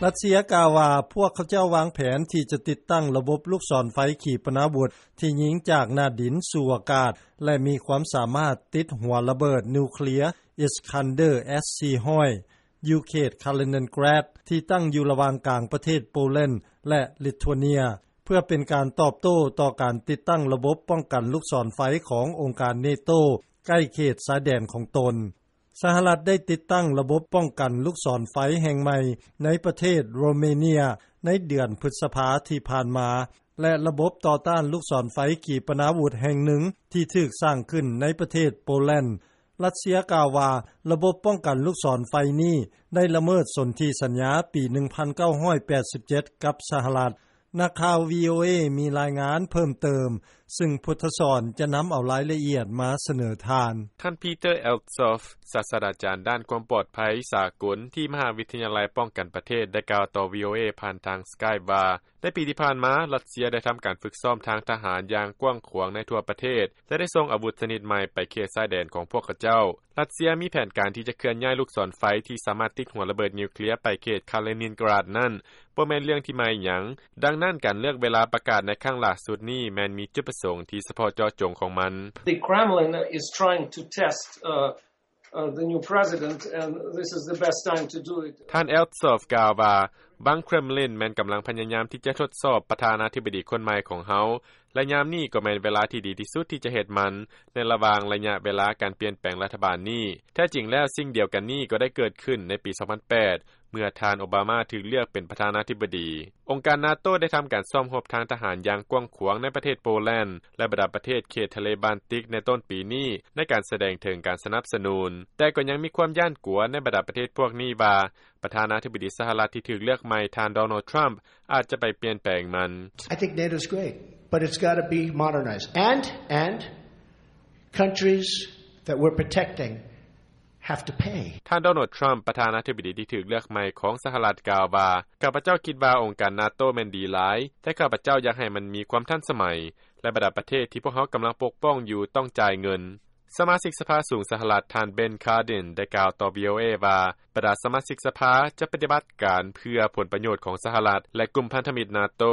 ຣັດເຊຍກ່າວວ່າ ພວກເຂົາເຈົ້າວາງແຜນທີ່ຈະຕິດຕັ້ງລະບົບລູກສອນໄຟຂີປະນາວຸດ ທີ່ຍິງຈາກໜ້າດິນສູ່ອາກາດ ແລະ ມີຄວາມສາມາດຕິດຫົວລະເບີດນິວເຄລຍ Iskander S-สี่ร้อย ຢູ່ເຂດ Kaliningrad ທີ່ຕັ້ງຢູ່ລະຫວ່າງກາງປະເທດໂປແລນ ແລະ ລິດທວເນຍ ເພື່ອເປັນການຕອບໂຕ້ຕໍ່ການຕິດຕັ້ງລະບົບປ້ອງກັນລູກສອນໄຟຂອງອົງການເນໂຕ ໃກ້ເຂດຊາຍແດນຂອງຕົນ. ສະຫະລັດໄດ້ຕິດຕັ້ງລະບົບປ້ອງກັນລູກສອນໄຟແຫ່ງໃໝ່ໃນປະເທດໂຣເມເນຍໃນເດືອນພຶດສະພາທີ່ຜ່ານມາ ແລະ ລະບົບຕໍ່ຕ້ານລູກສອນໄຟຂີປະນາວຸດແຫ່ງໜຶ່ງທີ່ຖືກສ້າງຂຶ້ນໃນປະເທດໂປແລນ. ຣັດເຊຍກ່າວວ່າ ລະບົບປ້ອງກັນລູກສອນໄຟນີ້ໄດ້ລະເມີດສົນທິສັນຍາປີໜຶ່ງພັນເກົ້າຮ້ອຍແປດສິບເຈັດກັບສະຫະລັດ. ນັກຂ່າວ VOA ມີລາຍງານເພີ່ມເຕີມ ຊຶ່ງພຸດທະສອນຈະນຳເອົາລາຍລະອຽດມາສະເໜີທ່ານ. ທ່ານ Peter Althoff ສາດສະດາຈານດ້ານຄວາມປອດໄພສາກົນທີ່ມະຫາວິທະຍາໄລປ້ອງກັນປະເທດ ໄດ້ກ່າວຕໍ່ VOA ຜ່ານທາງ Skype ວ່າ ໃນປີທີ່ຜ່ານມາ ຣັດເຊຍໄດ້ທຳການຝຶກຊ້ອມທາງທະຫານຢ່າງກວ້າງຂວາງໃນທົ່ວປະເທດ ແລະ ໄດ້ສົ່ງອາວຸດຊະນິດໃໝ່ໄປເຂດຊາຍແດນຂອງພວກເຂົາເຈົ້າ. ຣັດເຊຍມີແຜນການທີ່ຈະເຄື່ອນຍ້າຍລູກສອນໄຟທີ່ສາມາດຕິດຫົວລະເບີດນິວເຄລຍໄປເຂດ Kaliningrad ນັ້ນ ບໍ່ແມ່ນເລື່ອງທີ່ໃໝ່ຫຍັງ. ດັ່ງນັ້ນ ການເລືອກເວລາປະກາດໃນຄັ້ງຫຼ້າສຸດນີ້ ແມ່ນມີຈຸດປະສົງທີ່ສະເພາະເຈາະຈົງຂອງມັນ. The Kremlin is trying to test, uh, uh, the new president, and this is the best time to do it. ທ່ານ Althoff ກ່າວວ່າ ບັງເຄຣມລິນແມ່ນກຳລັງພະຍາຍາມທີ່ຈະທົດສອບປະທານາທິບໍດີຄົນໃໝ່ຂອງເຮົາ ແລະ ຍາມນີ້ກໍແມ່ນເວລາທີ່ດີທີ່ສຸດທີ່ຈະເຮັດມັນ ໃນລະຫວ່າງໄລຍະເວລາການປ່ຽນແປງລັດຖະບານນີ້. ແທ້ຈິງແລ້ວ ສິ່ງດຽວກັນນີ້ກໍໄດ້ເກີດຂຶ້ນໃນປີສອງພັນແປດ ເມື່ອທ່ານໂອບາມາຖືກເລືອກເປັນປະທານາທິບໍດີ. ອົງການນາໂຕໄດ້ທຳການຊ້ອມຮົບທາງທະຫານຢ່າງກວ້າງຂວາງໃນປະເທດໂປແລນ ແລະ ບັນດາປະເທດເຂດທະເລບານຕິກໃນຕົ້ນປີນີ້ ໃນການສະແດງເຖິງການສະໜັບສະໜູນ. ແຕ່ກໍຍັງມີຄວາມຢ້ານກົວໃນບັນດາປະເທດພວກນີ້ວ່າ ປະທານາທິບໍດີສະຫະລັດທີ່ຖືກເລືອກໃໝ່ ທ່ານ Donald Trump ອາດຈະໄປປ່ຽນແປງມັນ. I think NATO's great, but it's gotta be modernized. And, and countries that we're protecting have to pay. ທ່ານ Donald Trump ປະທານາທິບໍດີທີ່ຖືກເລືອກໃໝ່ຂອງສະຫະລັດ ກ່າວວ່າ ຂ້າພະເຈົ້າຄິດວ່າອົງການນາໂຕແມ່ນດີຫຼາຍ, ແຕ່ຂ້າພະເຈົ້າຢາກໃຫ້ມັນມີຄວາມທັນສະໄໝ ແລະ ບັນດາປະເທດທີ່ພວກເຮົາກຳລັງປົກປ້ອງຢູ່ຕ້ອງຈ່າຍເງິນ. ສະມາຊິກສະພາສູງສະຫະລັດ ທ່ານ Ben Cardin ໄດ້ກ່າວຕໍ່ VOA ວ່າ ບັນດາສະມາຊິກສະພາຈະປະຕິບັດການເພື່ອຜົນປະໂຫຍດຂອງສະຫະລັດ ແລະ ກຸ່ມພັນທະມິດນາໂຕ.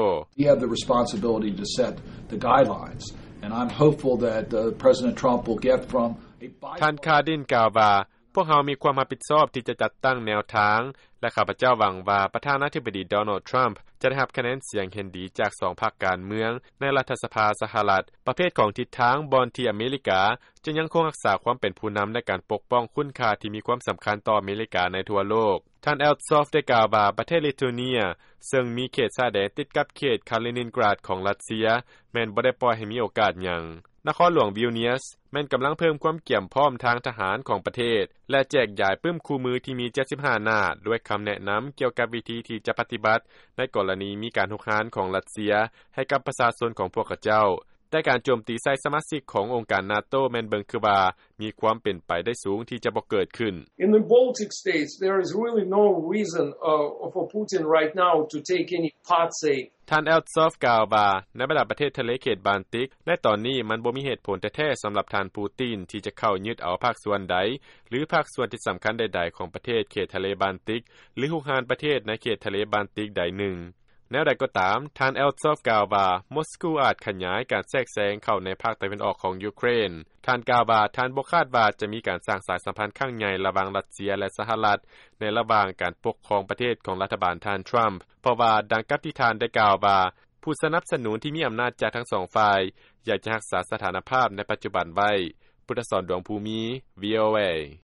We have the responsibility to set the guidelines, and I'm hopeful that, uh, President Trump will get from a bipartisan ທ່ານ Cardin ກ່າວວ່າ ພວກເຮົາມີຄວາມຮັບຜິດຊອບທີ່ຈະຈັດຕັ້ງແນວທາງ ແລະ ຂ້າພະເຈົ້າຫວັງວ່າປະທານາທິບໍດີ Donald Trump ຈະໄດ້ຮັບຄະແນນສຽງເຫັນດີຈາກສອງພັກການເມືອງໃນລັດຖະສະພາສະຫະລັດ ປະເພດຂອງທິດທາງບ່ອນທີ່ອາເມລິກາຈະຍັງຄົງຮັກສາຄວາມເປັນຜູ້ນຳໃນການປົກປ້ອງຄຸນຄ່າທີ່ມີຄວາມສຳຄັນຕໍ່ອາເມລິກາໃນທົ່ວໂລກ. ທ່ານ Althoff ໄດ້ກ່າວວ່າ ປະເທດລິດທວເນຍ ເຊິ່ງມີເຂດຊາຍແດນຕິດກັບເຂດ Kaliningrad ຂອງຣັດເຊຍ ແມ່ນບໍ່ໄດ້ປ່ອຍໃຫ້ມີໂອກາດຫຍັງ. ນະຄອນຫຼວງ Vilnius ແມ່ນກຳລັງເພີ່ມຄວາມກຽມພ້ອມທາງທະຫານຂອງປະເທດ ແລະ ແຈກຢາຍປຶ້ມຄູ່ມືທີ່ມີເຈັດສິບຫ້າໜ້າ ດ້ວຍຄຳແນະນຳກ່ຽວກັບວິທີທີ່ຈະປະຕິບັດໃນກໍລະນີມີການຮຸກຮານຂອງຣັດເຊຍໃຫ້ກັບປະຊາຊົນຂອງພວກເຂົາເຈົ້າ. ແຕ່ການໂຈມຕີໃສ່ສະມາຊິກຂອງອົງການນາໂຕແມ່ນເບິ່ງຄືວ່າມີຄວາມເປັນໄປໄດ້ສູງທີ່ຈະບໍ່ເກີດຂຶ້ນ. In the Baltic states, there is really no reason, uh, for Putin right now to take any part, say, ທ່ານ Althoff ກ່າວວ່າ ໃນບັນດາປະເທດທະເລເຂດບານຕິກ ໃນຕອນນີ້ມັນບໍ່ມີເຫດຜົນແທ້ໆສຳລັບທ່ານ Putin ທີ່ຈະເຂົ້າຍຶດເອົາພາກສ່ວນໃດ ຫຼື ພາກສ່ວນທີ່ສຳຄັນໃດໆຂອງປະເທດເຂດທະເລບານຕິກ ຫຼື ຮຸກຮານປະເທດໃນເຂດທະເລບານຕິກໃດໜຶ່ງ. ແນວໃດກໍຕາມ, ທ່ານ Althoff ກ່າວວ່າ ມົສກູອາດຂະຫຍາຍການແຊກແຊງເຂົ້າໃນພາກຕາເວັນອອກຂອງຢູເຄຣນ. ທ່ານກ່າວວ່າ ທ່ານບໍ່ຄາດວ່າຈະມີການສ້າງສາຍສຳພັນຄັ້ງໃຫຍ່ລະຫວ່າງຣັດເຊຍ ແລະ ສະຫະລັດ ໃນລະຫວ່າງການປົກຄອງປະເທດຂອງລັດຖະບານທ່ານ Trump ເພາະວ່າ ດັ່ງກັບທີ່ທ່ານໄດ້ກ່າວວ່າ ຜູ້ສະໜັບສະໜູນທີ່ມີອຳນາດຈາກທັງສອງຝ່າຍ ຢາກຈະຮັກສາສະຖານະພາບໃນປັດຈຸບັນໄວ້. ພຸດທະສອນ ດວງພູມີ VOA.